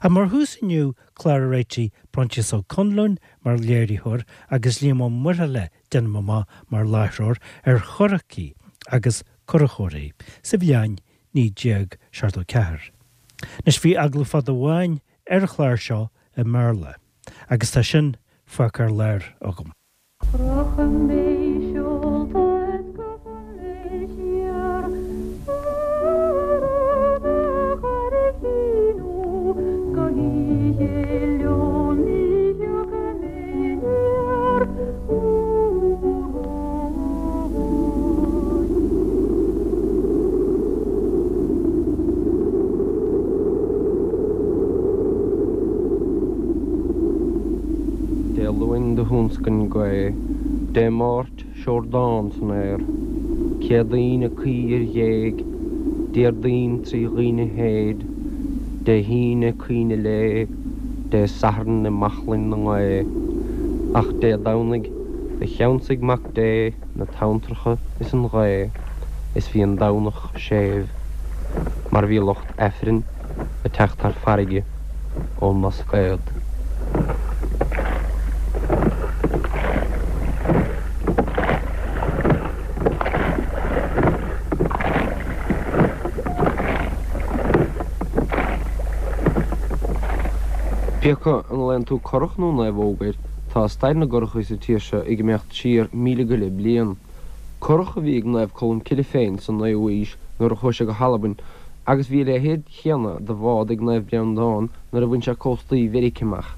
Ach mar thús inniu, clár a réitigh Proinsias Ó Conluain mar léiritheoir agus Liam Ó Muirthile, déanaim amach, mar láithreoir, ar churachaí agus curachóirí sa bhliain 1974. Anois bhí agallamh fada amháin ar an chlár seo i mBéarla agus tá sin fágtha ar lár agam. Rachaidh mé seolta is gabhfaidh mé siar ar an gCurraichín ó go hoíche liom ní thiocfaidh mé aniar uair amháin. Dé Luain do thúnscain gaoth, Dé Máirt seordán san aer, Céadaoin ag caoi ar ghéag, Déardaoin tri dhaoine théid, Dé hAoine caoineadh lae, Dé Sathairn i mbaclainn na ngaoth, Ach Dé Domhnaigh do cheansaigh Mac Dé na tonntracha is an ghaoth, is bhí an Domhnach séimh, mar bhí lucht Aifrinn ag teacht thar farraige ón mBlascaod. Pé acu an nglaonn tú curach nó naomhóg air, tá stair na gcurachaí sa tír seo ag imeacht siar 1,000 go leith bliain. Curach a bhí ag Naomh Colm Cille féin sa naoú haois nuair a chuaigh sé go hAlbain agus bhí a leithéid chéanna de bhád ag Naomh Breandán nuair a bhain sé cóstaí Mheirice amach.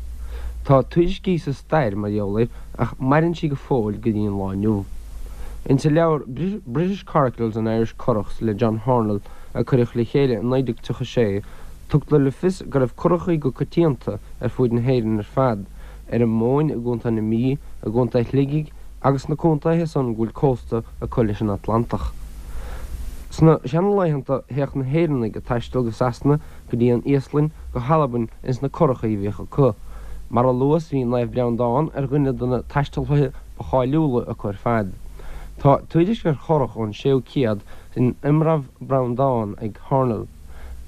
Tá tuairiscí sa stair mar gheall air ach maireann sí go fóill go dtí an lá inniu. Insa leabhar British Coracles and Irish Currachs le John Hornell a cuireadh le chéile i 1936 tugtar le fios go raibh curachaí go coitianta ar fuaid na hÉireann ar fad, ar an Mhóin i gContae na Mí, i gContae Shligigh agus sna contaetha san go bhfuil cósta acu leis an Atlantach. Sna seanlaethanta théadh na hÉireannaigh ag taisteal go Sasana, go dtí an Íoslainn, go hAlbain ins na curachaí a bhíodh acu. Mar a luas bhí Naomh Breandán ar dhuine de na taistealaithe ba cháiliúla acu ar fad. Tá tuairisc ar churach ón séú céad in Iomramh Breandán ag Hornell.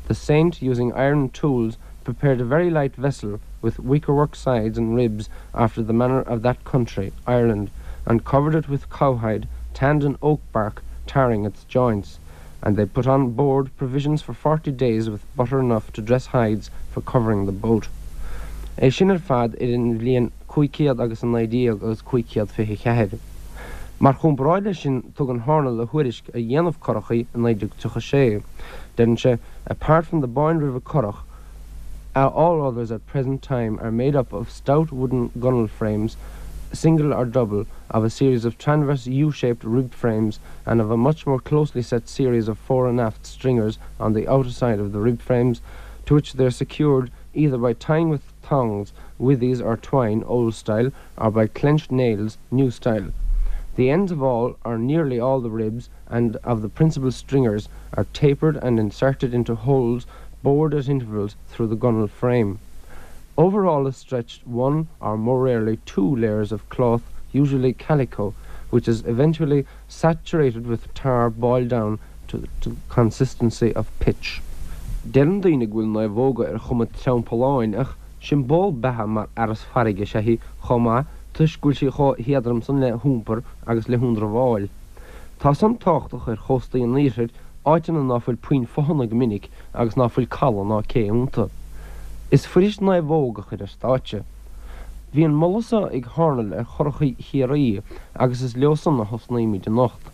The saint using iron tools prepared a very light vessel with wickerwork sides and ribs after the manner of that country, Ireland, and covered it with cowhide, tanned in oak bark, tarring its joints. And they put on board provisions for 40 days with butter enough to dress hides for covering the boat. É sin ar fad idir an bhliain 500 agus 19 agus 524. Mar chomparáid leis sin tugann Hornell a thuairisc ar dhéanamh curachaí i 1936. Deireann sé, Apart from the Boyne River currach, all others at present time are made up of stout wooden gunwale frames, single or double, of a series of transverse U-shaped rib frames and of a much more closely set series of fore and aft stringers on the outer side of the rib frames, to which they are secured either by tying with thongs, withies or twine, old style, or by clenched nails, new style. The ends of all, or nearly all the ribs, and of the principal stringers are tapered and inserted into holes bored at intervals through the gunwale frame. Over all is stretched one, or more rarely two, layers of cloth, usually calico, which is eventually saturated with tar boiled down to the consistency of pitch. Deireann daoine go bhfuil naomhóga ar chuma treampalláin ach siomból beatha mar fhearas farraige is ea í chomh maith toisc go bhfuil sí chomh héadrom san le hiompar agus le hionramháil. Tá san tábhachtach ar chóstaí an iarthair, áiteanna ná fuil puinn fothana go minic agus ná fuil caladh ná cé iontu. Is fuirist naomhóg a chur ar stáitse. Bhí an moladh so ag Hornell ar churachaí Chiarraí agus is leo san a thosnaímid anocht.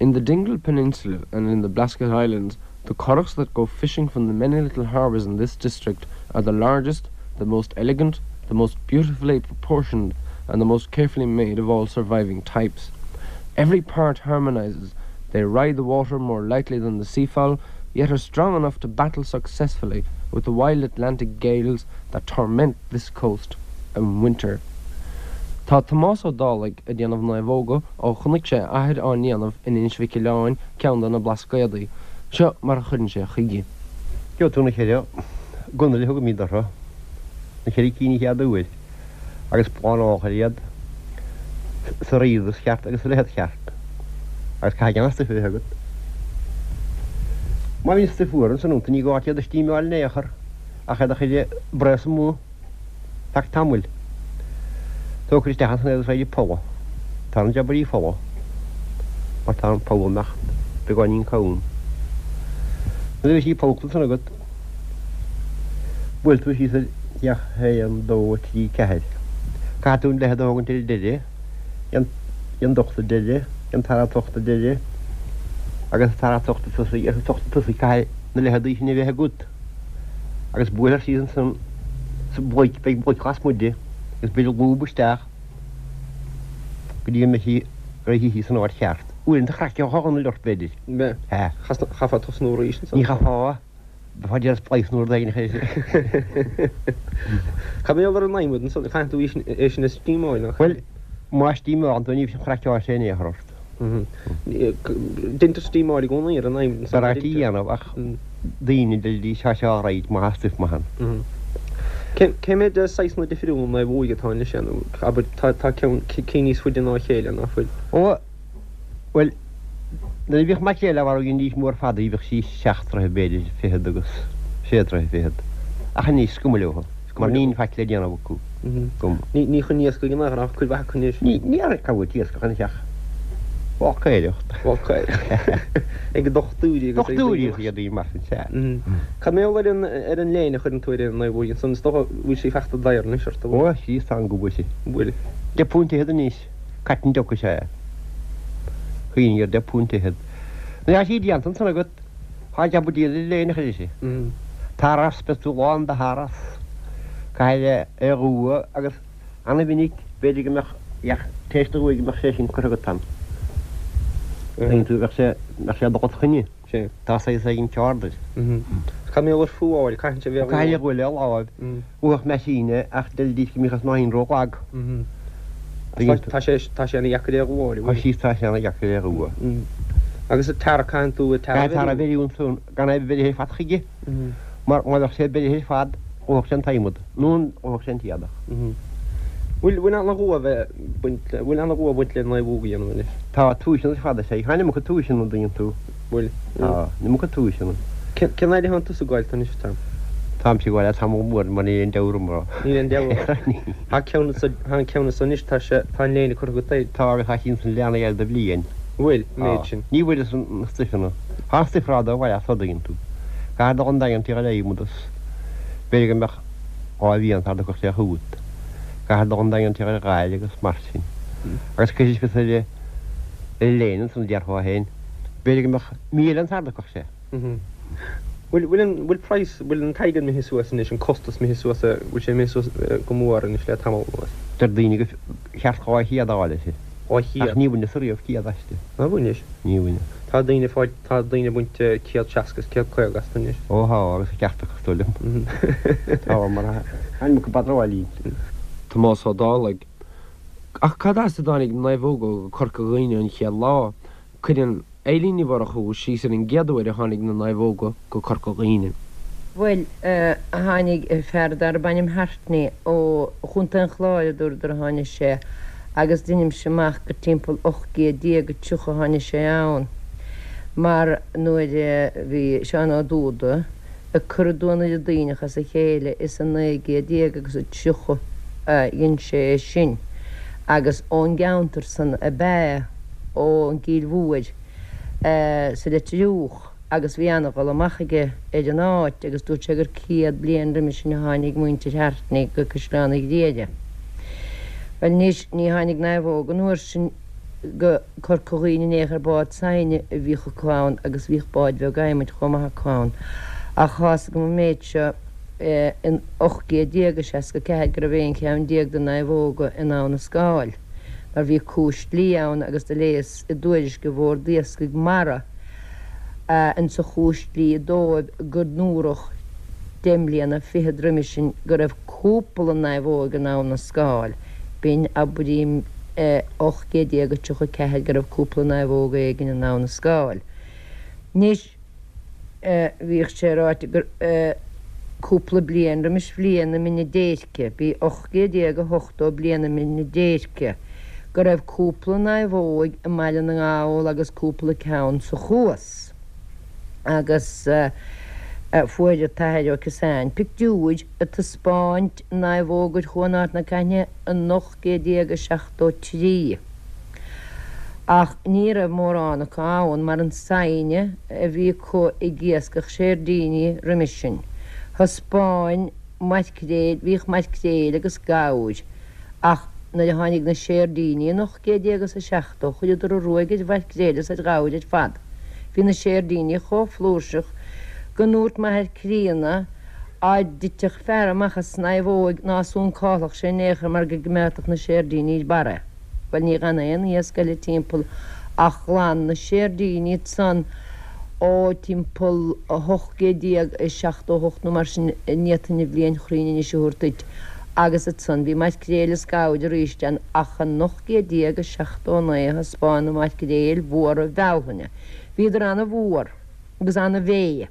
In the Dingle Peninsula and in the Blasket Islands, the currachs that go fishing from the many little harbours in this district are the largest, the most elegant, the most beautifully proportioned and the most carefully made of all surviving types. Every part harmonises, they ride the water more lightly than the seafowl, yet are strong enough to battle successfully with the wild Atlantic gales that torment this coast in winter. Tá Tomás Ó Dálaigh ag déanamh naomhóga ó chonaic sé a athair á ndéanamh in Inis Mhic Oileáin, ceann de na Blascaodaí. Seo mar a chuireann sé chuige. Gheobhaidh tú na cheithre gunnail a thugaimid orthu, na cheithre cinn an chéad uair, agus plánálfar iad sa righdeas cheart agus sa leithead cheart, agus caithfidh an-stuif a bheith agat. Má bhíonn stuif fuar ansan iontu ní gá duit iad a stímeáil in aon chor. ach é do chur ag braos amuigh feadh tamaill. Tógfar isteach ansan é agus raghaidh folamh. Tá an jabairí folamh mar tá an poll amach beagáinín cúng. Nuair a bhí sí pollta ansan agat, buail tú síos ar féach 1, 2, 3, 4. Caithfidh tú an leithead a thógaint ar an deireadh, an docht ar deireadh, an tara tocht ar deireadh agus an tara tocht tosaigh, ar an tocht tosaigh caithfidh na leitheadaí sin a bheith agat. Agus buailfear síos ansan sa bhloic, beidh bloic lasmuigh di agus beidh lúb isteach go dtí go mbeidh sí réitithe san áit cheart. Uaireanta chraiceochadh an uileart b'fhéidir. Mbeadh. Sea. Chaithfeá tosnú arís ansan. Ní chaithfeá. Bheifeá ag déanamh splice nó rud éigin a chur. Cad mar gheall ar an adhmad ansan? Caitheann tú é sin a steamáil nach ea? Bhuel, má steamálann tú ní bheidh an chraiceáil sé in aon chor ort. Deintear steamáil i gcónaí ar an adhmad ansan. B'fhearr é a dhéanamh ach daoine deirfidís tá sé alright má tá stuif maith ann. Cé mhéad saghsanna difriúla naomhóige atá anois nó abair tá ceann cinn níos faide ná a chéile ná fuil? Ó bhuel nuair a bhíodh maicréil á mharú dheindís mór fada í bhíodh sí seacht dtroithe b'fhéidir fichead agus sé troithe fichead ach anois is cuma leo. Mar níl faic le déanamh acu. Ní chun iascaigh in aon chor ach cuid mhaith acu anois. Ní cá bhfuil t-iascach anois ach bácaeireacht. Bácaeireacht. Ag dochtúirí agus ag daoine. Dochtúirí agus ag daoine mar sin, sea. Cad mar gheall ar an ar an léine a chuireann tú ar an naomhóig ansan? Is dócha bhfuil sí fachta daor anois ort, an bhfuil? Ó, sea, tá an go bhfuil sí. Bhfuil. £10 anois. Cotton duck is ea é. Cuimhnigh ar £10. Nuair atá sí déanta ansan agat, Tá jab buidéal le léine a chur uirthi. Taras, beidh tú lán de tharas. Caithfidh é a dhua agus ana-mhinic b'fhéidir go mbeadh ach tar éis do dhua go mbeadh sé sin curtha agat ann. Tuigeann tú, bheadh sé, bheadh sé ag dul os coinne. Tá saghas éigin ceard air. Cad mar gheall ar fuáil, caitheann sé bheith Caithfidh é a dhua le láimh. Dhúfadh meaisín é ach deiridís go mbíodh an snáithín ró-lag. Tá sé tá sé ana-dheacair é a dhúáil, an bhfuil? Tá tá sé ana-dheacair é a dhua. Agus an tarra, caitheann tú an tarra a bheiriú? Caithfidh tarra a bheiriú ansan gan é bheith beirithe ar fad chuige mar má bheadh sé beirithe ar fad dhófadh sé an t-adhmad nó dhófadh sé an t-éadach. Bhfuil bhfuil ana-dhua bheith baint le bhfuil ana-dhua baint le naomhóg a dhéanamh anois? Tá tomhaiseanna ar fad is ea. Tá an iomarca tomhaiseanna an dtuigeann tú. Bhfuil. Tá an iomarca tomhaiseanna. Cén fhad a théann tusa ag gabháil anois, Tom? Táimse ag gabháil le tamall mór mar níl aon deabhadh orm. Níl aon deabhadh ort. Tá ceann anso, tá an ceann anso anois, tá sé, tá an léine curtha agat air. Tá agus tá sí ansan leathnaithe air do bhliain. Bhfuil, an méid sin. Ní bhfuaireas na stuifeanna. Tá an stuif rada a bhaile as an dtuigeann tú. Caithfidh dul an Daingean tigh an adhmad is b'fhéidir go mbeadh 2 mhí ann sara dtiocfadh sé chugat. Caithfidh dul an Daingean tigh an ghail agus mar sin. Agus cuirfidh fios ar an léine ansan a déarfá féin. B'fhéidir go mbeadh mí eile ann sara dtiocfadh sé. Bhfuil, bhfuil an, bhfuil praghas, bhfuil an t-airgead imithe suas anois, an costas imithe suas, bhfuil sé imithe suas go mór anois le tamall anuas? Deir daoine gur cheart 200 a fháil uirthi. 200? Ach ní bhaineas ariamh 100 aisti. Nár bhainis? Ní bhaineas. Tá daoine ag fáil, tá daoine ag baint 160 is 150 astu anois. Ó tá, agus an ceart acu, is dóigh liom. Tá, mar tá an iomarca badráil inti. Tomás Ó Dálaigh. Ach cad as a dtáinig naomhóga go Corca Dhuibhne an chéad lá? Cuireann Eilín Ní Mhurchú síos ar an gcéad uair a tháinig na naomhóga go Corca Dhuibhne. Bhuel, tháinig fear darb ainm Hartney ó Chontae an Chláir, a dúradar a tháinig sé, agus deinimse amach gur timpeall 1830 a tháinig sé ann, mar nuair a bhí Seán Ó Dúda ag cur an Duanaire Duibhneach as a chéile is i 19 gcéad agus a 30 a dhein sé é sin, agus ón gceantar san ab ea é. ón gCill Mhóir sa Leitir Fhiodhach agus bhí ana-dhul amach aige ar an áit agus dúirt sé gur 100 bliain roimhe sin a tháinig muintir Hartney go Caisleán an Ghriaire. Bhuel anois ní tháinig naomhóg an uair sin go Corca Dhuibhne in aon chor bád saighne a bhíodh acu ann agus bhíodh báid bheag adhmaid chomh maith acu ann. Ach tá's agam an méid seo in 1864 go raibh aon cheann déag de naomhóga in Abha na Scáil. mar bhí cúis dlí ann agus do léigheas i dtuairisc an Bhord Iascaigh Mara insa chúis dlí dóibh go ndúradh deich mbliana fichead roimhe sin go raibh cúpla naomhóig in Abha na Scáil. B'in, abraím, 1834 go raibh cúpla naomhóg éigin in Abha na Scáil. Anois. Bhíodh sé ráite gur cúpla bliain roimis bhliain na Mine Déirce, b'í 1880 bliain na Mine Déirce, go raibh cúpla naomhóig i mBaile na nGall agus cúpla ceann sa Chuas. Agus. Fuair an tAthair Ó Ciosáin pictiúir ag taispeáint naomhógair Chuan Ard na Caithne in 1873. Ach ní raibh mórán acu ann mar an saighne a bhí acu ag iascach seirdíní roimis sin. Thaispeáin maircréil, bhíodh maircréil agus gabhair ach nuair a tháinig na seirdíní in 1870 chuireadar an ruaig ar mhaircréil is ar ghabhair ar fad. Bhí na seirdíní chomh flúirseach go ndúirt m'athair críonna á dtitfeadh fear amach as naomhóig ná suncálfadh sé in aon chor mar go gcoimeádfadh na seirdíní ar barr é. Bhuel ní dh'fhan aon iasc eile timpeall ach ghlan na seirdíní ansan ó timpeall 1878 nó mar sin, ní fhéadfainn an bhliain chruinn anois a thabhairt duit, agus ansan bhí maircréil is gabhair arís ann ach in 1879 a thaispeáin na maircréil mhóra Bhealtaine. Bhíodar ana-mhór agus ana-mhéith.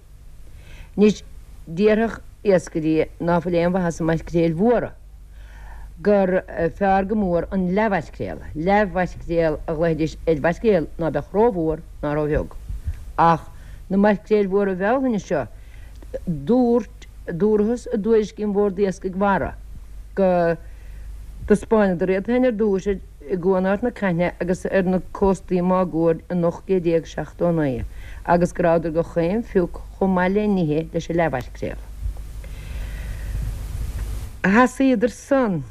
Anois déarfadh iascairí ná fuil aon mhaitheas i maircréil mhóra gur fearr go mór an leathmhaircréal. Leathmhaircréal a ghlaofaidís ar mhaircréal ná beadh rómhór ná róbheag. Ach na maircréil mhóra Bhealtaine seo, dúirt, dúrathas i dtuairiscí an Bhord Iascaigh Mhara go dtaispeánadar iad féin ar dtúis ar i gCuan Ard na Caithne agus ar na cóstaí máguaird in 1879 agus go rabhadar go chaon phioc chomh maith le n-ithe leis an leathmhaircréal. Sheasaíodar san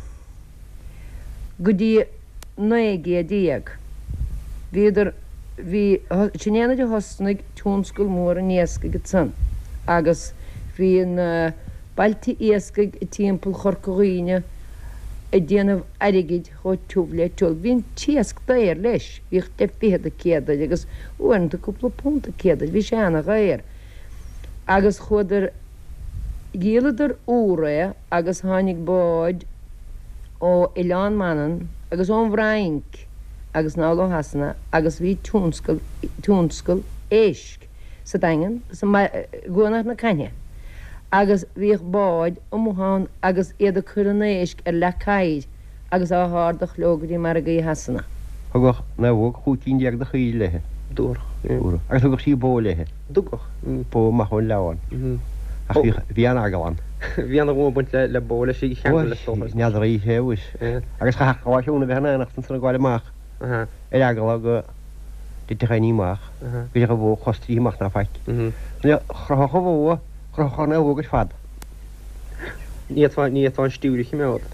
go dtí 19 gcéad. Bhíodar, bhí, sin é nuair a thosnaigh tionscal mór an iascaigh ansan agus bhí na bailte iascaigh timpeall Chorca Dhuibhne ag déanamh airgid chomh tiubh le tiul. Bhí an t-iasc daor leis, bhíodh deich bhfichead an céad air agus uaireanta cúpla punt an céad air, bhí sé ana-dhaor. Agus chuadar, dhíoladar úr é agus tháinig báid ó Oileán Mhanann agus ón bhFrainc agus anall ó Shasana agus bhí tionscal, tionscal éisc sa Daingean, sa, i gCuan Ard na Caithne agus bhíodh báid amuigh ann agus iad ag cur an éisc ar leac oighir agus á hardach leo go dtí margaí Shasana. Thugadh naomhóg 15 cinn de chaoirigh léithe. Dtabharfadh. Agus thugadh sí bó léithe. dtugadh. Bó amach ón Leamhán. Ach bhíodh, bhí an-eagla ann. Bhí ana-ghunna ag baint le bó leis í a cheangal is dócha. N'fheadar oíche abhus. Agus chaithfeadh lá siúna bheith in éineacht ansan ag gabháil amach ar eagla go dtitfeadh éinní amach, go dtitfeadh an bhó cos tríthi amach ná faic. Nuair a chroithfeadh an bhó, chroithfeadh an naomhóg ar fad. Ní fhéadfá, ní fhéadfá an stiúir a chimeád.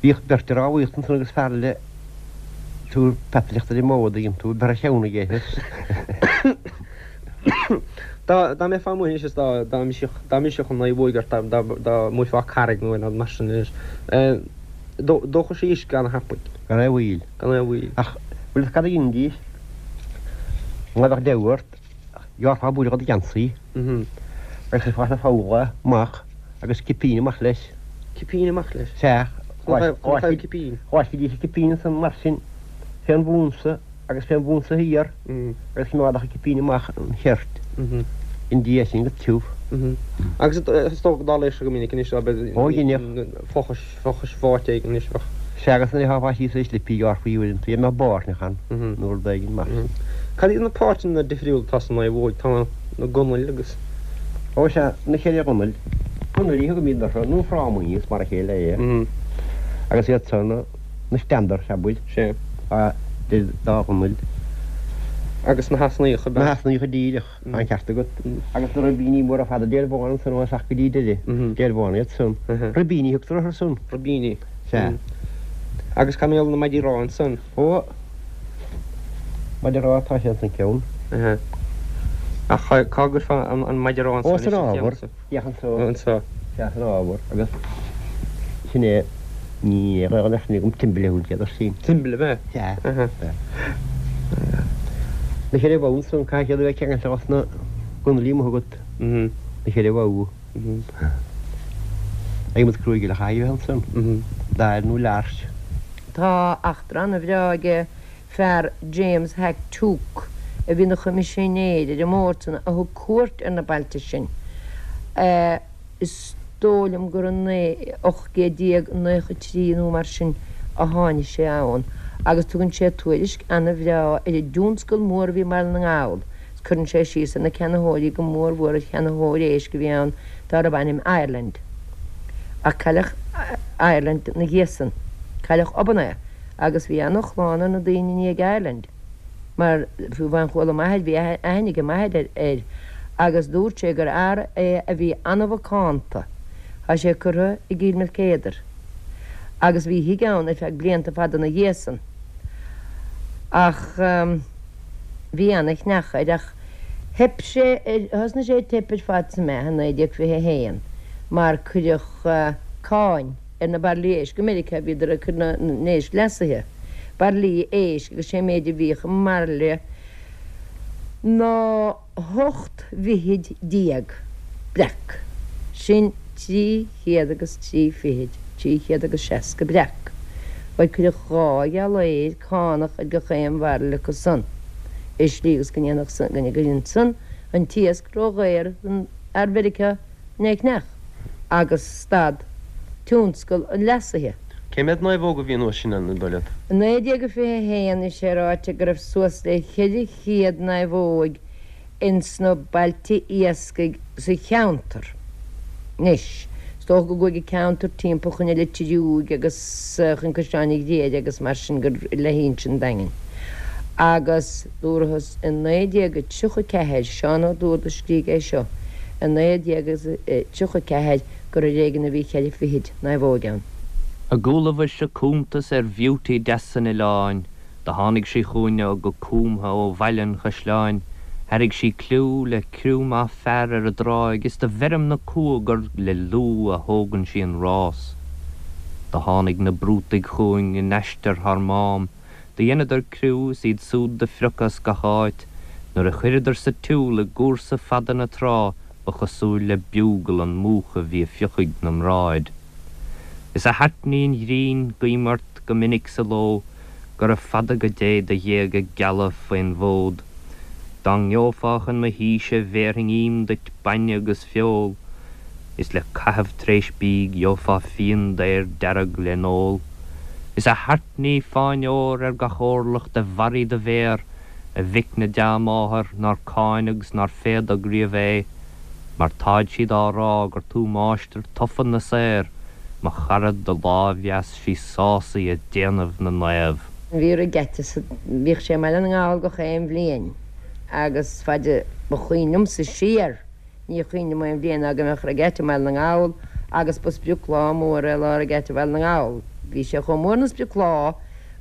Bhíodh beirt ag rámhaíocht ansan agus fear eile ag tabhairt peataireachta ar an mbó a dtuigeann tú, bheadh a cheann aige. Dá, dá mbeifeá amuigh anois is dá, dá mbrisfeadh, dá mbrisfeadh an naomhóig ort, dá, dá, dá mbuailfeá carraig nó aon rud mar sin anois, dóchadh sí uisce ana-thapaidh. Gan aon mhoill. Gan aon mhoill. Ach bhfuil fhios cad a dheinidís? Má bheadh deabhadh ort, ghearrfá buille de do gheansaí agus chuirfeá sna foghla amach agus cipín amach leis. Cipín amach leis? Sea. Conas a cipín? Dh'fháiscfidís an cipín ansan mar sin fén bhunsa agus fén bhunsa thiar agus choimeádfadh an cipín amach an cheirt i ndiaidh sin go tiubh. Agus is dócha go dtarlaíodh sé go minic anois ab ea? Ó dheineadh. Fochais, fochais bháite éigin anois bheadh. Sea agus nuair a tháfá síos ar slipí ghearrfaí uaireanta, dá mbeadh báirneach ann nó rud éigin mar sin. Cad iad na páirteanna difriúla atá sa naomhóig? Tá na gunail agus. Ó sea, na ceithre ghunail. Gunailí a thugaimid orthu, nó frámaí, is mar a chéile é. Agus iad san na standards, abair. Sea. Tá idir dá ghunail. Agus na heasnaíocha. Na heasnaíocha díreach, tá an ceart agat. Agus na ribíní móra fada deilbheána ansan ó thosach go dtí deireadh. Deilbheána iad san. Ribíní a thugtar orthu san. Ribíní. Sea. Agus cá mbeadh na maidí ráithe ansan? Ó, maide ráithe tá sé ansan ceann. Ach cá gcuirfeá an maide ráithe ansan? Ó, san ábhar. Féach anso. Anso. Sea, san ábhar. Agus sin é, ní raibh an aithne agam timble a thugann siad air sin. Timble, ab ea? Sea. Na ceithre bhogha ansan, caithfidh siad a bheith ceangailte dos na gunailí amuigh agat. Na ceithre bhogha. Adhmad cruaidh eile a chaithfidh a bheith ansan. Dair nó larch. Tá eachtra ana-bhreá aige fear James Hack Tuke, a bhí ina choimisinéir ar an mbord san, a thug cuairt ar na bailte sin. Is dóigh liom gur in 1893 nó mar sin a tháinig sé ann agus tugann sé tuairisc ana-bhreá ar an dtionscal mór a bhí i mBaile na nGall. Cuireann sé síos ar na ceannaitheoirí, go mór mhór ar cheannaitheoir éisc a bhí ann dárbh ainm Ireland. Ach cailleadh Ireland 'na dhiaidh san. Cailleadh obann é agus bhí ana-shlán ar na daoine i ndiaidh Ireland mar fiú amháin chuala m'athair, bhí aithne ag m'athair air agus dúirt sé gur fhear é a bhí ana-mhacánta. Tá sé curtha i gCill Maoilchéadair agus bhí a thigh ann ar feadh blianta fada 'na dhiaidh san. Ach. Bhí ana-chneach air ach theip sé ar, thosnaigh sé ag teip ar fad sa meath i 1921 mar cuireadh cáin ar na bairillí éisc i Meiriceá, bhíodar ag cur na n-éisc leasaithe, bairillí éisc agus sé an méid a bhíodh i mbairille ná 18 bhfichid breac, sin 300 agus trí fichid, 360 breac. Bhuel cuireadh dhá ghiollaeir cánach ar gach aon bhairille acu san, i slí agus go ndéanfadh san, go gcuireann san an t-iasc ró-dhaor don fhear Mheiriceá chun é a cheannach, agus stad tionscal an leasaithe. Cé mhéad naomhóg a bhí an uair sin ann, an dóigh leat? I 1921 bhí sé ráite go raibh suas le 400 naomhóig ins na bailte iascaigh sa cheantar. Anois, is dócha go gcuaigh an ceantar timpeall chun an Leitir Fhiúig agus chun Caisleán an Ghriaire agus mar sin gur le hInse an Daingin. Agus dúrathas i 1934, Seán Ó Dúrdaigh a scrígh é seo, i 1934 gur ar éigean a bhí cheithre fichid naomhóig ann. A gcualabhais-se cuntas ar bheauty deas an oileáin, Do tháinig sí chugainne go cúmtha ó Bhaile an Chaisleáin, Thairrig sí cliú le criú maith fear ar an dtráigh Is do bheirim na cumha gur le lúth a thógann sí an rás. Do tháinig na Brútaigh chugainn in aistear thar Mám, Do dheineadar criú is iad súd do phrioc as gach áit, Nuair a chuireadar sa tsiúl i gcúrsa fada na trá Ba chosúil le bugle an múchadh bhí a fiuchadh na mbráid. Is a thaitní an ghrinn, guím ort go minic sa ló, Gura fada go dté do ghéaga geala faoin bhfód. Dá ngeofá chun mo thíse bhéarfainn ím duit bainne agus feoil, Is le caitheamh tar éis bídh gheofá fíon daor dearg le n-ól. Is a thaitní fáinne óir ar gach órlach de bharraí do mhéar, A mhic na dea-máthar nár cáineadh 's nár féadadh riamh é, Mar táid siad á rá gur tú máistir tofa na saor, mo chara do láimh dheas 'sí sásaí ag déanamh na naomh. Bhí regatta sa, bhíodh sé i mBaile na nGall gach aon bhliain agus faid a ba chuimhin liomsa siar, ní chuimhin liom aon bhliain ná go mbeadh regatta i mBaile na nGall agus ba sprioclá mór é lá regatta Bhaile na nGall. Bhí sé chomh mór 'na sprioclá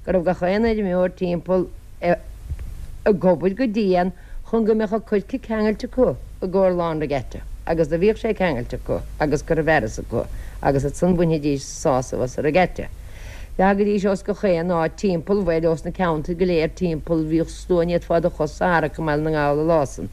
go raibh gach aon fheirmeoir timpeall ag obair go dian chun go mbeadh a coirce ceangailte acu i gcomhair lá an regatta agus do bhíodh sé ceangailte acu agus curtha i bhfearas acu agus ansan bhainfidís sásamh as an regatta. Thagaidís ós gach aon áit timpeall, bhuel ós na ceantair go léir timpeall, bhíodh slua ní fhéadfá do chos a tharrac i mBaile na nGall an lá san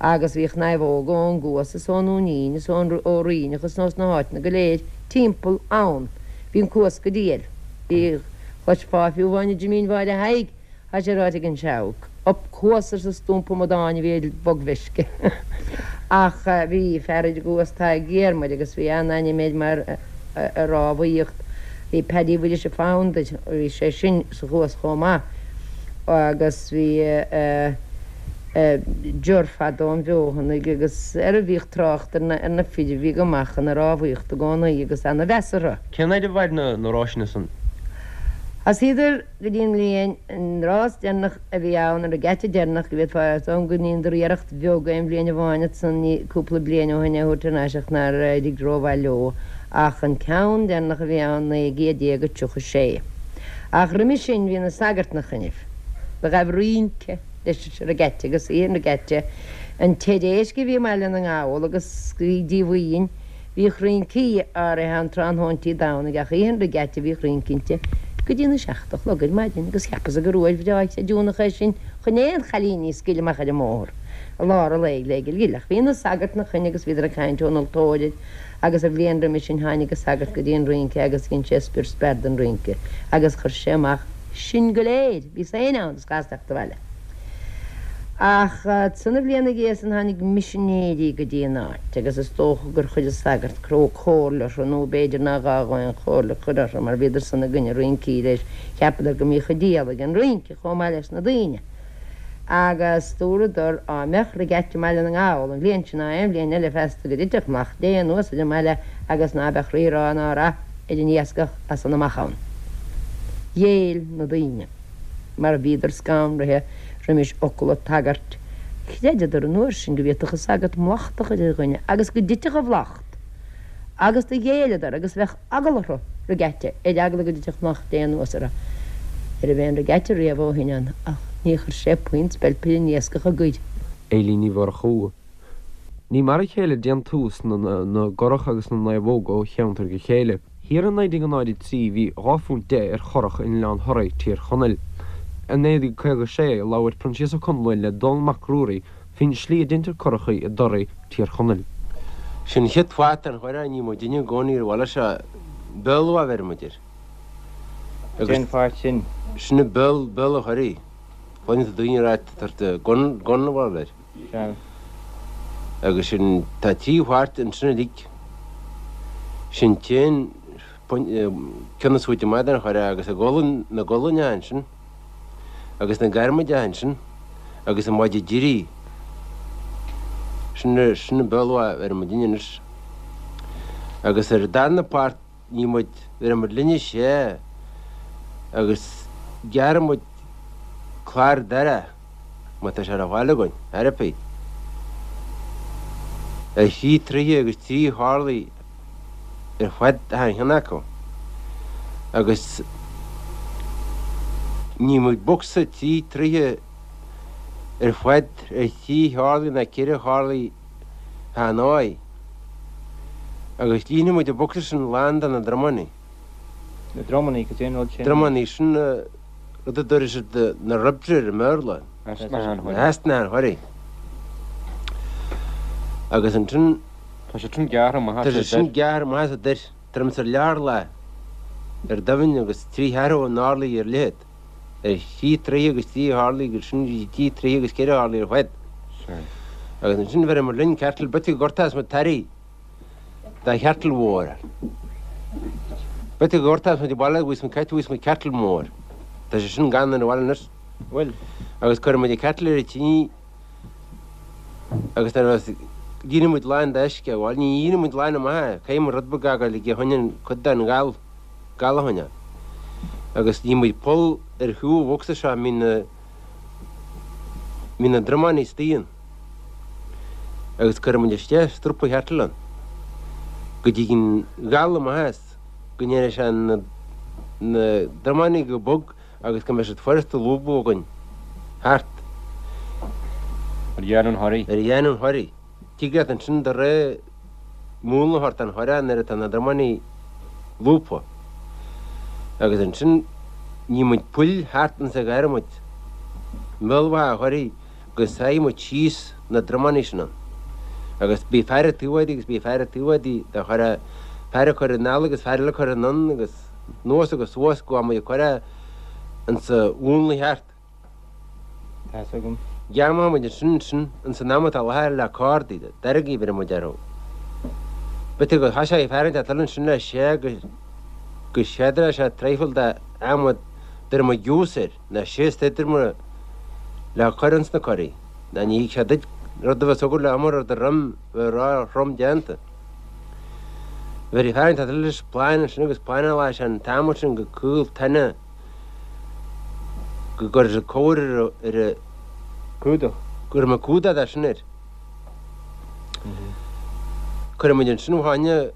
agus bhíodh naomhóga ón gCuas is ón nDúinín is ón ó Ríneach is ós na háiteanna go léir timpeall ann. Bhí an Cuas go diail. Bhí, chloisfeá fiú amháin i Jimín Mháire Thaidhg, Tá sé ráite ag an Seabhac. Up Cuas arsa stumpa amadáin a bhí ar bhogmheisce. Ach bhí fear ar an gCuas Tadhg Dhiarmaid agus bhí an-ainm air mar i rámhaíocht. Bhí Paddy Mhuiris a' Founder, bhí sé sin sa Chuas chomh maith agus bhí Ger fadó an Bheothanaigh agus ar a bhíodh trácht ar na fir a bhí go maith chun na rámhaíochta i gcónaí agus ana-mheas orthu. Cén fhaid a mhair na ráiseanna san? Thosaíodar go dtí an bhliain, an rás deireanach a bhí ann, an regatta deireanach, go bhféadfá, is dóigh liom go ndeineadar iarracht bheag aon bhliain amháin ansan cúpla bliain ó shin é a thabhairt thar n-ais ach nár éirigh rómhaith leo, ach an ceann deireanach a bhí ann, 1936. Ach roimhe sin bhí na sagairt 'na choinnibh. Do ghabh rince leis an regatta agus oíche an regatta, an teir éisc a bhí i mBaile na nGall agus bhí díomhaoin, Bhíodh rincí áirithe ann tráthnóintí Domhnaigh ach oíche an regatta bhíodh rince inti go dtí na seacht a chlog ar maidin agus cheapas-sa gur uair bhreá chreidiúnach é sin chun aon chailíní a scaoileadh amach ar an mbóthar i lár an lae le gil Ach bhí na sagairt 'na choinne agus bhíodar ag caint ón altóir air agus an bhliain roimhe sin tháinig an sagart go dtí an rince agus dhein sé spior spear den rince agus chuir sé amach sinn go léir, bhí éinne ann is chas teacht abhaile. Ach ansan an bhliain 'na dhiaidh san tháinig misinéirí go dtí an áit agus is dócha gur chuir an sagart cró comhairle orthu nó b'fhéidir nár ghá dhó aon chomhairle a chur orthu mar bhíodar san i gcoinne rincí leis, cheapadar go mbíodh an diabhal ag an rince chomh maith leis na daoine. Agus dúradar á mbeadh regatta i mBaile na nGall an bhliain sin ná aon bhliain eile feasta go dtitfeadh Mac Dé anuas ar an mbaile agus ná beadh rírá ná rath ar an iascach as san amach ann. Ghéill na daoine, mar bhíodar scanraithe roimis fhocal an tsagairt. Chreideadar an uair sin go bhféadfadh an sagart mallacht a chur ar dhuine agus go dtitfeadh an mhallacht, agus do ghéilleadar agus bheadh eagla orthu regatta, ar eagla go dtitfeadh Mac Dé anuas orthu. Ní raibh aon regatta riamh ó shin ann, ach ní chuir sé puinn speilp ar an iascach i gCoirr. Eilín Ní Mhurchú. Ní mar a chéile déantús na gcurach agus na naomhóg ó cheantar go chéile. Thiar i 1903 bhí £2.10 ar churach in Oileán Thoraí, Tír Chonaill. I 1956 labhair Proinsias Ó Conluain le Dónall Mac Ruairí faoin slí a deintear curachaí i dToraí, Tír Chonaill. Sin an chéad pháirt den churach, ní muidinne i gcónaí ar bhaile seo, béal a bheireann muid air. Cén pháirt sin? Sin an béal, béal an churaigh. Cluineann tú daoine ag ráit tá gunbhall air. Sea. Agus sin, tá trí pháirt ansin uilig. Sin t-aon ceann is faide amach den churach agus na gualainne ansin. agus na garmaide ansin agus an maide deiridh. Sin sin an bealach a bheireann muidinne anois. Agus ar an darna páirt ní muid, bheireann muid linne sé agus gearrann muid clár darach má tá sé ar fáil againn, ar bith. Ar thrí troithe agus trí horlaí ar fad achan cheann acu agus ní muid bocsa trí troithe ar fad ar thrí horlaí ná ceithre horlaí achan áith agus líonfaidh muid an bocsa sin lán de na dromannaí. Na dromannaí, cad é an rud sin? Dromannaí, sin rud a dtabharfaidh siad na ribs air i mBéarla. Na heasna an churraigh. Agus ansin. Tá sé sin gearrtha amach as an. Tá sé sin gearrtha amach as an dair, tuairim is ar leath orlaigh ar doimhin agus trí cheathrú an orlaigh ar leithead, ar thrí troithe agus trí horlaí agus sin trí troithe agus ceithre horlaí ar fad. Agus ansin bheireadh muid linn ceartal b'fhéidir go ngortós muid tarraí de cheartal mhór. B'fhéidir go ngortós muid abhaile bhíos muid caite bhíos muid ceartal mór. Tá sé sin gann ar an bhaile anois. Bhuel. Agus cuireann muid an ceartal ar an tine Agus nuair a bheas líonfaidh muid lán d'uisce, bhuel, ní líonfaidh muid lán amach é, caithfidh muid rud beag a fhágáil aige a choinne cuid den ghal, gal a choinneáil. Agus ní muid poll ar thaobh an bhocsa seo a mbíonn na, mbíonn na dromáin istigh ann. Agus cuirfidh muid isteach strúpa cheartail ann go dtig an gal amach as, go ndéanfaidh sé na, na dromáin go bog agus go mbeidh siad furasta a lúbadh againn thart. Ar dhéanamh an churraigh. Ar dhéanamh an churraigh. Tig leat ansin do rogha múnla a thabhairt don churach nuair atá na dromáin lúbtha. Agus ansin ní muid poill thart insa adhmad i mbealach an churraigh go sáigh muid síos na dromáin sin ann. Agus bhí fear ag taobh agus bhí fear ag taobh do churach, fear ag cur anall agus fear eile ag cur anonn agus. anuas agus suas go bhfuil muid ag cur é insa mhúnla cheart. Tá's agam. Ghearrfaidh muid ansin ansin ins an am atá láthair le cordaí, deirgí bheireann muid orthu. B'fhéidir go thoiseoidh fear inteacht eile ansin le sé go go séadra sé traidhfil de adhmad deireann muid giús air, ná síos idir muid le cur ins na curaí. Ná ní thig sé duit rud a bheas agat le iomar ar do dhroim bheith ró-throm déanta. Bheir fear inteacht eile leis plána ansin agus plánáladh sé an t-adhmad sin go caol tine go gcuirfeadh sé cóir ar a. Cumhdach. Go raibh mé cumhdach de sin air. Cuirfidh muid ansin ó tháine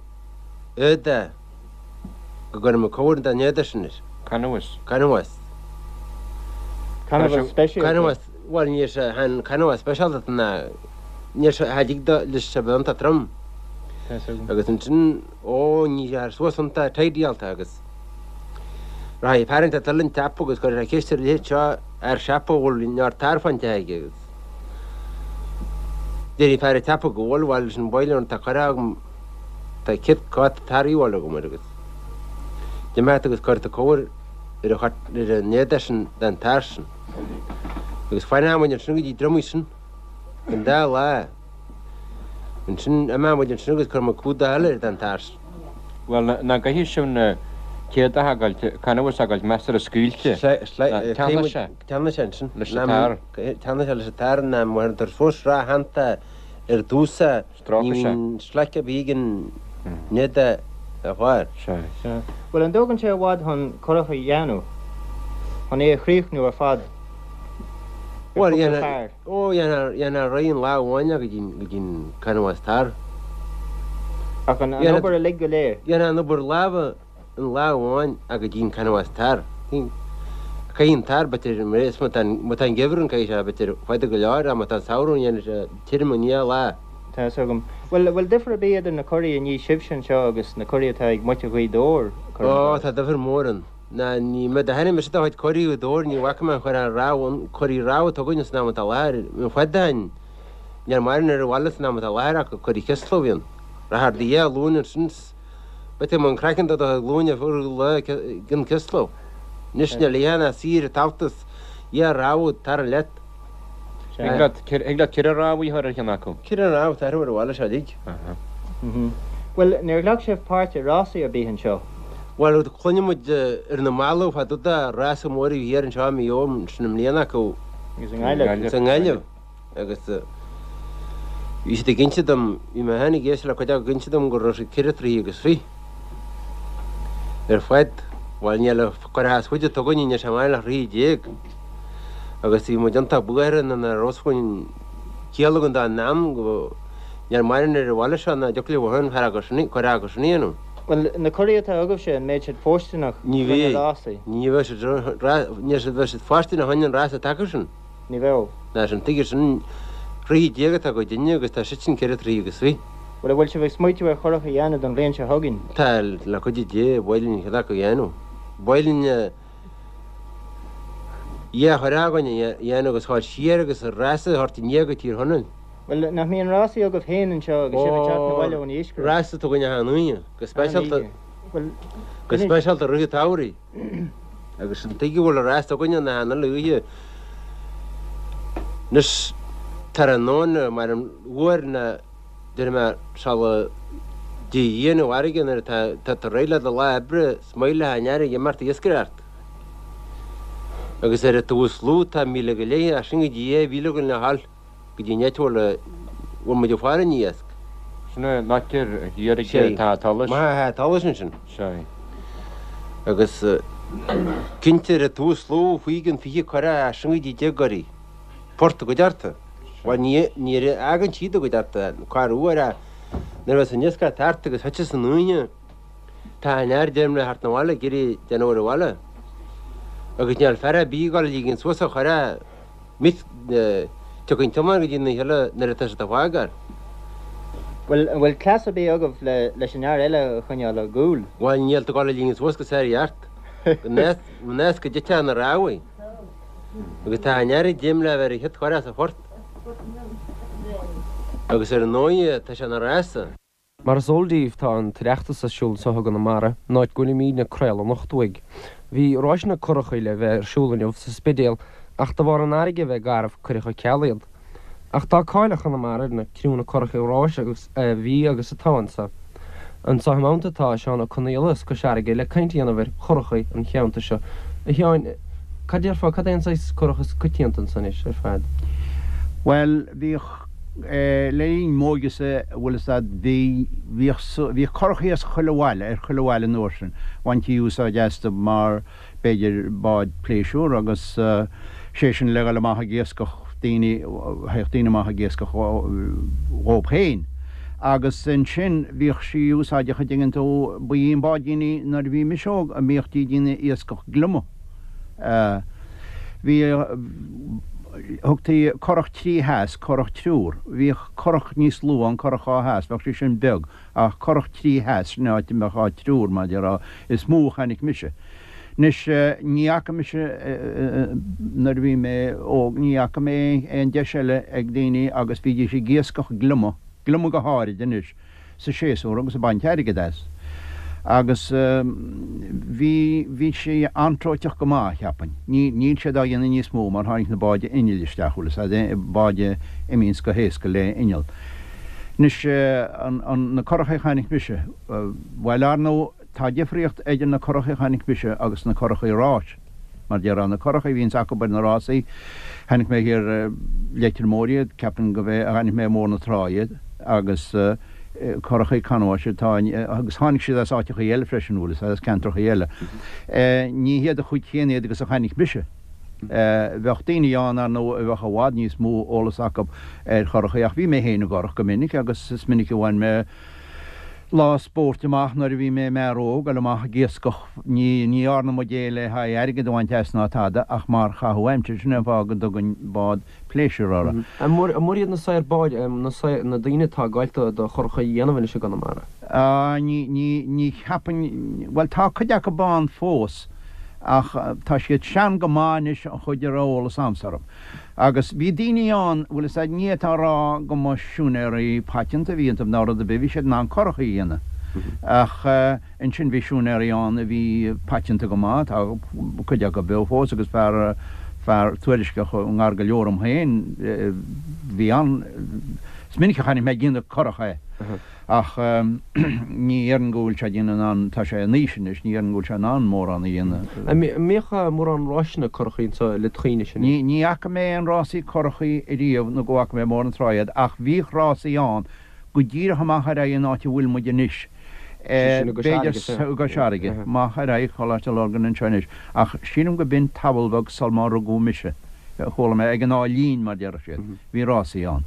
éadaí go gcuirfidh muid cóir den éadach sin air. Canbhás. Canbhás. Canbhás speisialta. Canbhás, bhuel níl sé, chan canbhás speisialta ná níl sé, cha dtig do leis a bheith iontach trom. Agus ansin, ó ní sé suas iontach tidyáilte agus rachaidh fear inteacht eile an tsiopa agus cuirfidh sé ceist ar a leithéid seo fhear siopa a bhfuil neart tar faighte aige agus déarfaidh fear an tsiopa go bhfuil, bhuel sin bail orm tá curtha agam Tá cit cát tar a bhaile agam agus d'imeacht agus cuir do cóir ar a chart ar an éadach sin den tar sin. Agus fanfaidh muid ansin go dtí drumaí sin an dá lá. Ansin imeoidh muid ansin agus cuirfidh muid cumhdach eile ar den tar sin. Bhuel, nach gcaithfidh sibh na. Céard atá ag goil, canbhás ag goil measartha scaoilte. Teannfaidh sé. Teannfaidh sé ansin. Leis an tar. Teannfaidh sé leis an tar ná má théann fós srathanta ar dtús ní bhíonn slaic ar bith ag an nead a fháil. Sea. Bhuel, an dtógann sé i bhfad chun curach a dhéanamh? Chun é a chríochnú ar fad? Ar Bhuel, chúpla fear? Ó, dhéanfá réidh in lá amháin é go dtí an canbhás tar. Ach an obair uilig go léir? Dhéanfá an obair láimhe in lá amháin ach go dtí an canbhás tar. Caithfidh an tar, b'fhéidir, má tá má tá an geimhreadh ann caithfidh sé, b'fhéidir, fada go leor ach má tá an samhradh ann dhéanfaidh sé tirim i ndiaidh lá. Tá fhios agam. Bhuel, bhfuil difear ar bith idir na curaí a ní sibhse anseo agus na curaí atá ag muintir Ghaoth Dobhair? Ó, tá difear mór ann. Ná ní mé do tháinig mise do chuid curaí Ghaoth Dobhair, ní bhfaca mé an chur ar rabhadh an curaí rabhadh atá againne san am atá i láthair, an fad a tháin níl maireann ar an bhaile san am atá i láthair ach curaí Chisla a bhíonn. Rathar do dhia glúin ansin 's b'fhéidir mo an craiceann do do chuid glúine fuair lá gin Chisla. Anois níl oíche ná saoire tabhartas dhia rabhadh tar leat. Thig leat ceithre rabhadh a chur ar cheann acu. Ceithre rabhadh atá ar an bhaile seo uilig. Bhuel, níor ghlac sibh páirt i rásaí ar bith anseo? Bhuel, cluineann muid ar na mallaibh fá dtaobh de rása mór a bhí thiar anseo i Maigh Eo ansin i mbliana acu. Agus i nGaillimh. Agus i nGaillimh. Agus bhí siad ag inse dom, bhí mé féin ag éisteacht le cuid acu ag inse dom go raibh siad ceithre troithe agus fiche ar fad. Bhuel, níl an curach is faide atá againne, níl sé maidir le throithe déag. Agus bhí muid iontach buartha nuair nach raibh fhios againn ciall againn dá n-am go níl maireann ar an bhaile seo ná dtiocfadh leo féin fear acu sin, curach acu sin a dhéanamh. Bhuel, na curaí atá agaibhse, an mbeidh siad fóirsteanach Ní chun na bheidh. rásaí? Ní bheidh siad, ní bheidh siad fóirsteanach chun an rása atá acu sin. Ní bheadh. Ná sin, tuige sin, throithe déag atá acu dinne agus tá siad sin ceithre throithe agus fiche. Bhuel, an bhfuil sibh ag smaoitiú ar churach a dhéanamh don bhliain seo chugainn? Tá, le cuidiú Dé, ba mhaith linn ceann acu a dhéanamh. Ba mhaith linn dhá churach againn a dhéanamh agus a ghabháil siar agus rása a thabhairt i ndiaidh go Tír Chonaill. Bhuel, nach mbíonn rásaí agaibh féin anseo agus sibh ag teacht 'na bhaile ón iascaireacht? Rása atá againn achan Aoine, go speisialta, go speisialta rith an tsamhraidh. Agus an tuige a bhfuil an rása againne ná achan uile oíche anois tráthnóna mar an uair ná déarfaidh mé sula dtig an fharraige nuair atá tá tú réidh le do lá oibre is maith le an fharraige imeacht ag iascaireacht. Agus ar an taobh is lú tá míle go leith as sin go dtí 2000 againn le dhul. go dtí an áit a bhfuil muid ag faire an iasc. Sin é an áit ar thiar ag an tsolais. Maith an tsolais ansin. Sea. Agus cinnte ar an taobh is lú faoi chionn 20 curach as sin go dtí 10 gcuraí. Port i gcuideachta. Bhuel ní ní fhágann siad i gcuideachta corruair ach nuair a bheas an iascach thart agus thiteas an oíche tá an fhear deirim le theacht 'na bhaile ag iarraidh déanamh ar an bhaile. Agus níl fear ar bith ag dul a ligean suas a churach Mic tiocfaidh an tiomáint go dtí na huile nuair atá siad á fhágáil. Bhuel, an bhfuil cleas ar bith agaibh leis an fhear eile a choinneáil á gcúl? Bhuel, níl tú ag dul a ligean suas go sár-cheart, go nós go dtitfeadh na rámhaí. Agus tá an fhear ag dréim le bheith ar an chéad churach sa phort. Agus ar ndóigh, tá sé ina rása. Mar is eol daoibh tá an tOireachtas ar siúl anseo i gConamara, an áit go bhfuilimídne ag craoladh anocht uaidh. Bhí ráis na curachaí le bheith ar siúl inniu sa Spidéal ach de bharr an fharraige a bheith garbh cuireadh ar ceal iad. Ach tá cáil ar Chonamara ar na criúnna curachaí ráis agus a bhí agus atá anseo. Anseo i m'theannta tá Seán Ó Conaola as Cois Fharraige le caint a dhéanamh ar churachaí an cheantair seo. A Sheáin, cad déarfá, cad é an saghas curach is coitianta anso anois ar fad? Bhuel, bhíodh. Le linn m'óige-sa, bhfuil fhios a'd, bhí, bhíodh, bhíodh curachaí as chuile bhaile, ar chuile bhaile an uair sin. Bhaintí úsáid astu mar, b'fhéidir, bád pléisiúr agus sé sin le dhul amach ag iascach daoine, théadh daoine amach ag iascach dhóib féin. Agus ansin bhíodh sí úsáideach a' dtuigeann tú, ba í an báidín í nuair a bhí mise óg a mbíodh ag déanamh iascach gliomaigh. Bhí, thugtaí curach trí theas, curach triúr. Bhíodh curach níos lú ann, curach dhá theas, bheadh sí sin beag, ach curach trí theas, sin áit a mbeadh áit triúr, mar a déarfá, is mó a chonaic mise. Anois, ní fhaca mise, nuair a bhí mé óg, ní fhaca mé aon deis eile ag daoine agus bhídís ag iascach gliomaigh, gliomaigh go háirid anois, sa séasúr agus ag baint airgid as. Agus bhí, bhí sé antróiteach go maith, cheapfainn. Ní, níl siad á dhéanamh níos mó mar tháinig na báid innill isteach, bhfuil fhios a'd, báid a imíonns go héasca le inneall. Anois, an, an, na curachaí a chonaic mise, bhuel, ar ndóigh. tá difríocht idir na curachaí a chonaic mise agus na curachaí ráis. Mar déarfá, na curachaí a bhíonns acu ar na rásaí, chonaic mé thiar i Leitir Móir iad, ceapaim go b'é a chonaic mé i mBóthar na Trá iad, agus curachaí canbháis atá in, agus tháinig siad as áiteachaí eile freisin, bhfuil fhios a'd, as ceantrachaí eile. Ní hiad an chuid chéanna iad agus a chonaic mise. Bheadh daoine ann, ar ndóigh, a bheadh i bhfad níos mó eolas acu ar churachaí, ach bhí mé féin i gcurach go minic agus is minic a bhain mé lá spóirt amach nuair a bhí mé i m'fhear óg, dul amach ag iascach. Ní dhearna muid é le haghaidh airgead a bhaint as ná tada ach mar chaitheamh aimsire. Sin é an fáth go dtugainn bád pléisiúir orthu. An mór iad na saoir báid, na daoine atá ag goil do churachaí a dhéanamh anois i gConamara? Ní, ní, ní cheapainn, bhuel tá cuid acu ann fós ach tá siad sean go maith anois an chuid a raibh eolas a'msa orthu. Agus bhí daoine ann, bhfuil fhios a'd, ní fhéadfá a rá go mba siúinéirí paiteanta a bhí iontu ná rud ar bith, bhí siad in ann curachaí a dhéanamh. Ach ansin bhí siúinéirí ann a bhí paiteanta go maith, tá cuid acu beo fós agus fear, fear tuairisceach i ngar go leor dom féin, bhí an, is minic a chonaic mé ag déanamh curach é. Ach ní dhéarfainn go bhfuil sé ag déanamh in ann, tá sé in aois anois, ní dhéarfainn go bhfuil sé in ann mórán a dhéanamh. An mbíodh mórán ráiseanna curachaí anseo le dhaoine sin? Ní fhaca mé aon rásaí curachaí ariamh nó go bhfaca mé i mBóthar na Trá iad ach bhíodh rásaí ann go díreach amach ar aghaidh an áit a bhfuil muid anois, b'fhéidir i gCois Fharraige, amach ar aghaidh Choláiste Lurgan anseo anois ach sílim go b'in tamall beag sul má rugadh mise, chuala mé, ag an Áth Lín mar déarfadh siad. Bhí rásaí ann,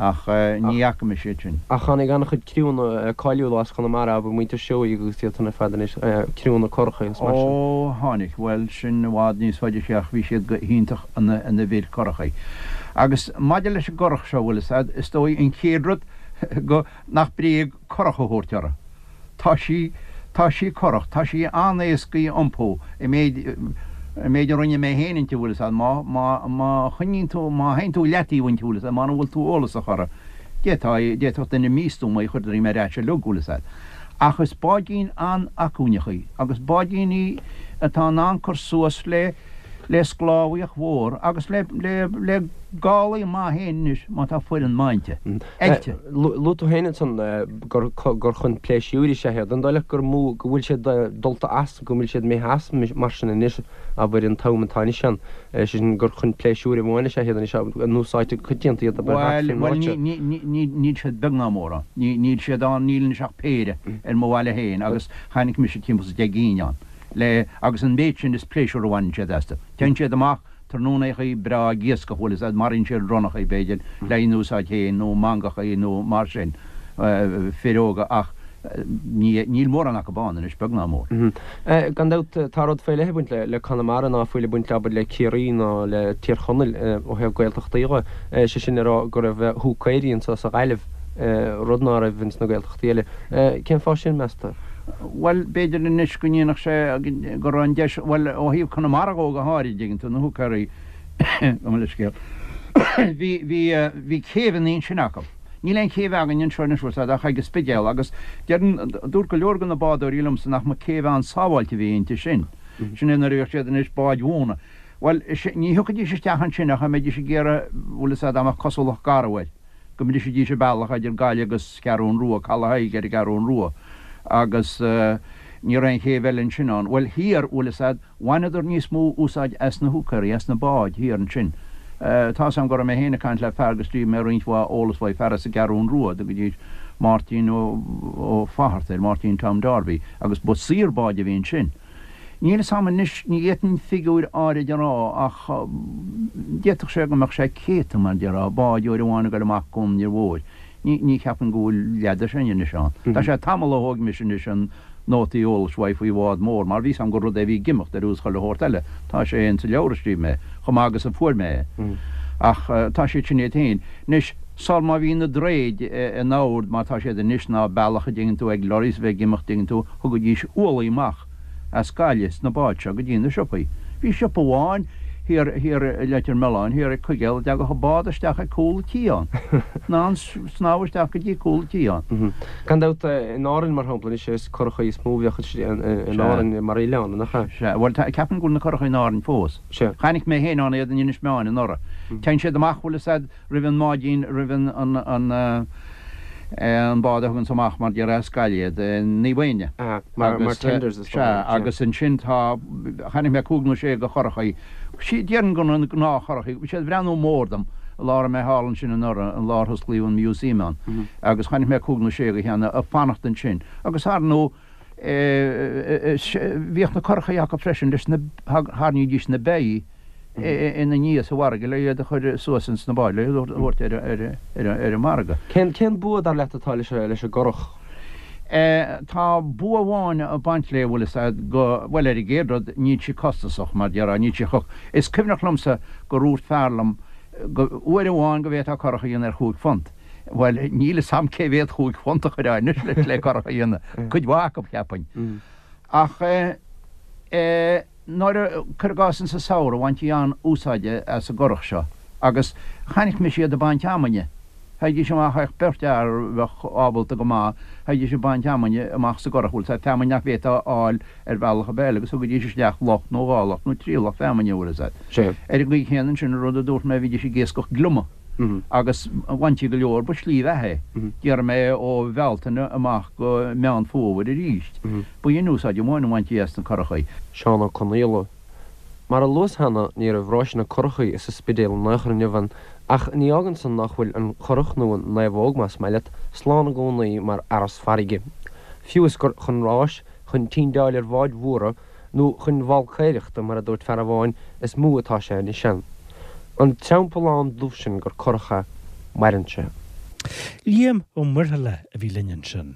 ach ní fhaca mise iad sin. Ach tháinig an-chuid criúnna cáiliúla as Conamara, abair muintir Seoighe agus iad san ar fad anois, criúnna curachaí agus mar sin. Ó, tháinig. Bhuel, sin i bhfad níos faide siar ach bhí siad go hiontach ina bhfir curachaí. Agus maidir leis an gcurach seo, bhfuil fhios a'd, is dóigh an chéad rud go, nach bréag curach a thabhairt uirthi. Tá sí, tá sí corrach, tá sí an-éasca a iompú, an méid, an méid a rinne mé féin inti, bhfuil fhios a'd, má, má, má choinníonn tú, má théann tú leataobh inti, bhfuil fhios a'd, mura bhfuil tú eolasach uirthi, d'fhéadfá, d'fhéadfadh duine místuama í a chur droim ar ais uilig, bhfuil fhios a'd. Ach is báidín an-acmhainneach í, agus báidín í atá in ann cur suas le, le sclábhaíocht mhór agus le, le, le gálaí maith féin anois má tá foireann maith inti, oilte. Luaigh tú féin ansan gur gur chun pléisiúir is ea iad. An dóigh leat gur mó go bhfuil siad dulta as, go bhfuil siad imithe as mar sin anois, abair an t-am atá anois ann, sé sin gur chun pléisiúir amháin is ea iad anois, an úsáidtear go coitianta iad abair thart faoin áit seo? Bhuel, níl siad beag ná mór ann. Níl siad ann, níl anois ach péire ar mo bhaile féin agus chonaic mise timpeall is 10 gcinn ann. le, agus an méid sin is pléisiúr a bhaineann siad astu. Téann siad amach tráthnónachaí breá ag iascach, bhfuil fhios a'd, maraíonn siad ronnachaí, b'fhéidir, le haghaidh a n-úsáid féin, nó mangachaí nó mar sin, fir óga, ach ní, níl mórán acu ann anois, beag ná mór. Gan dabht, tá rud faoi leith ag baint le Conamara ná fuil ag baint, abair, le Ciarraí ná le Tír Chonaill ó thaobh Gaeltachtaí dhe, sé sin le rá go raibh húcaeirí anso sa Ghaillimh, rud ná raibh ins na Gaeltachtaí eile. Cén fáth sin, meas tú? Bhuel, b'fhéidir anois go ndéanfadh sé go raibh an deis, bhuel, ó thaobh Conamara dhó go háirid, dtuigeann tú, na húcaeirí, gabh mo leithscéal, bhí, bhí, bhí céibheanna ansin acu. Níl aon chéibh againn anseo anois, bhfuil 's a'd, ach ag an Spidéal agus deireann, dúirt go leor de na bádóirí liomsa nach mba céibh an-sábháilte a bhí inti sin. Sin é nuair a bhíodh siad anois báid mhóna. Bhuel, ní thiocfaidís isteach ansin ach a mbeidís ag iarraidh, bhfuil 'fhios a'd, dá mbeadh cosúlacht garbh air. go mbrisfidís an bealach idir Gaillimh agus Ceathrún Rua, Caladh Thaidhg ar an gCeathrún Rua, agus ní raibh aon chéibh eile ansin ann. Bhuel, thiar, bhfuil 'fhios a'd, bhaineadar níos mó úsáid as na húcaeirí, as na báid thiar ansin. Tá's a'm go raibh mé féin ag caint le fear go scríobh mé roinnt mhaith eolas uaidh, fear as an gCeathrún Rua, a dtugaidís Máirtín Ó Fátharta air, Máirtín Tom Darby, agus ba saor báid a bhí ansin. Níl 'fhios a'm anois, ní fhéadfainn figiúir áirid a rá ach d'fhéadfadh sé go mbeadh sé céadta, mar déarfá, bád uair amháin ag dul amach gon Fhir Mhóir. Ní, ní cheapaim go bhfuil leath de sin anois ann. Tá sé tamall ó thóg mise anois an nótaí eolais uaidh faoi bhád mór mar bhí 'fhios a'm gur rud é a bhí ag imeacht ar nós chuile shórt eile. Tá sé insa leabhar a scríobh mé, chomh maith agus a fuair mé é. Ach tá siad sin iad féin. Anois, sul má bhí na droichid in ord mar tá siad anois ná bealach a dtuigeann tú ag lorries a bheith ag imeacht dtuigeann tú, Thugaidís ualaí amach as Gaillimh sna báid seo go dtí na siopaí. Bhí siopa amháin thiar, thiar i Leitir Mealláin, thiar ag Cuigéal, a dtagadh an bád isteach ag cúl an tí ann. In ann snámh isteach go dtí cúl an tí ann. Gan dabht, in Árainn, mar shampla, anois is curachaí is mó a bheadh in Árainn mar oileán, nach ea? Sea. Bhuel, tá, ceapaim go bhfuil na curachaí in Árainn fós. Sea. Chonaic mé féin ann iad in Inis Meáin anuraidh. Téann siad amach, bhfuil 'fhios a'd, roimh an mbáidín, roimh an, an, an. An bád a thuganns amach mar déarfá as Gaillimh iad, Naomh Éanna. Mar tenders is dóigh. Sea, agus ansin tá, chonaic mé cúig nó sé de churachaí, déarfainn gur na gnáthchurachaí, bhí siad ag breathnú mór dom, an lá a raibh mé thall ansin anuraidh, an lá ar hosclaíodh an museum ann, agus chonaic mé cúig nó sé de cheanna ag fanacht ansin. Agus ar ndóigh, Bhíodh na curachaí acu freisin leis na, tharraingídís na beithígh ina ndiaidh sa bhfarraige le iad a chur suas ins na báid, le iad a thabhairt ar an margadh. Cén bua, dar leat, atá leis an gcurach? Tá bua amháin ag baint léi, bhfuil fhios a'd, go, bhuel ar an gcéad rud, níl sí costasach, mar déarfá, níl sí chomh, is cuimhneach liomsa gur dhúirt fear liom go, uair amháin go bhféadfá curach a dhéanamh ar chúig phunt. Bhuel, níl fhios a'm cé mhéad chúig phunt a chuirfeá anois le curach a dhéanamh. Cuid mhaith acu, cheapfainn. Ach eh, nuair a, cuir i gcás insa samhradh, bhaintí an-úsáid as an gcurach seo agus chonaic mise iad ag baint fheamainne. Théidís amach, théadh beirt fhear a bheadh ábalta go maith, théidís ag baint fheamainne amach sa gcurach, bhfuil fhios a'd, feamainn nach bhféadfá a fháil ar bhealach ar bith eile agus thugaidís isteach loch nó dhá loch nó trí loch feamainne, bhfuil fhios a'd. Ar an gcaoi chéanna ansin, an rud a dúirt mé, bhídís ag iascach gliomaigh. agus bhaintí go leor, ba slí bheatha é. Déarfaidh mé ó Bhealtaine amach go Meán Fómhair arís. Ba in úsáid amháin a bhaintí as na curachaí. Seán Ó Conaola. Mar a luas cheana, ní raibh ráiseanna curachaí sa Spidéal in aon chor inniu ann, ach ní fhágann san nach bhfuil an curach, nó an naomhóg más maith leat, slán i gcónaí mar fhearas farraige. Fiú is gur chun ráis, chun tindeáil ar bháid mhóra, nó chun bhalcaeireachta, mar a dúirt fear amháin, is mó atá sé anois ann. An teampallán dubh sin gur curach é, maireann sé. Liam Ó Muirthile a bhí linn ansin.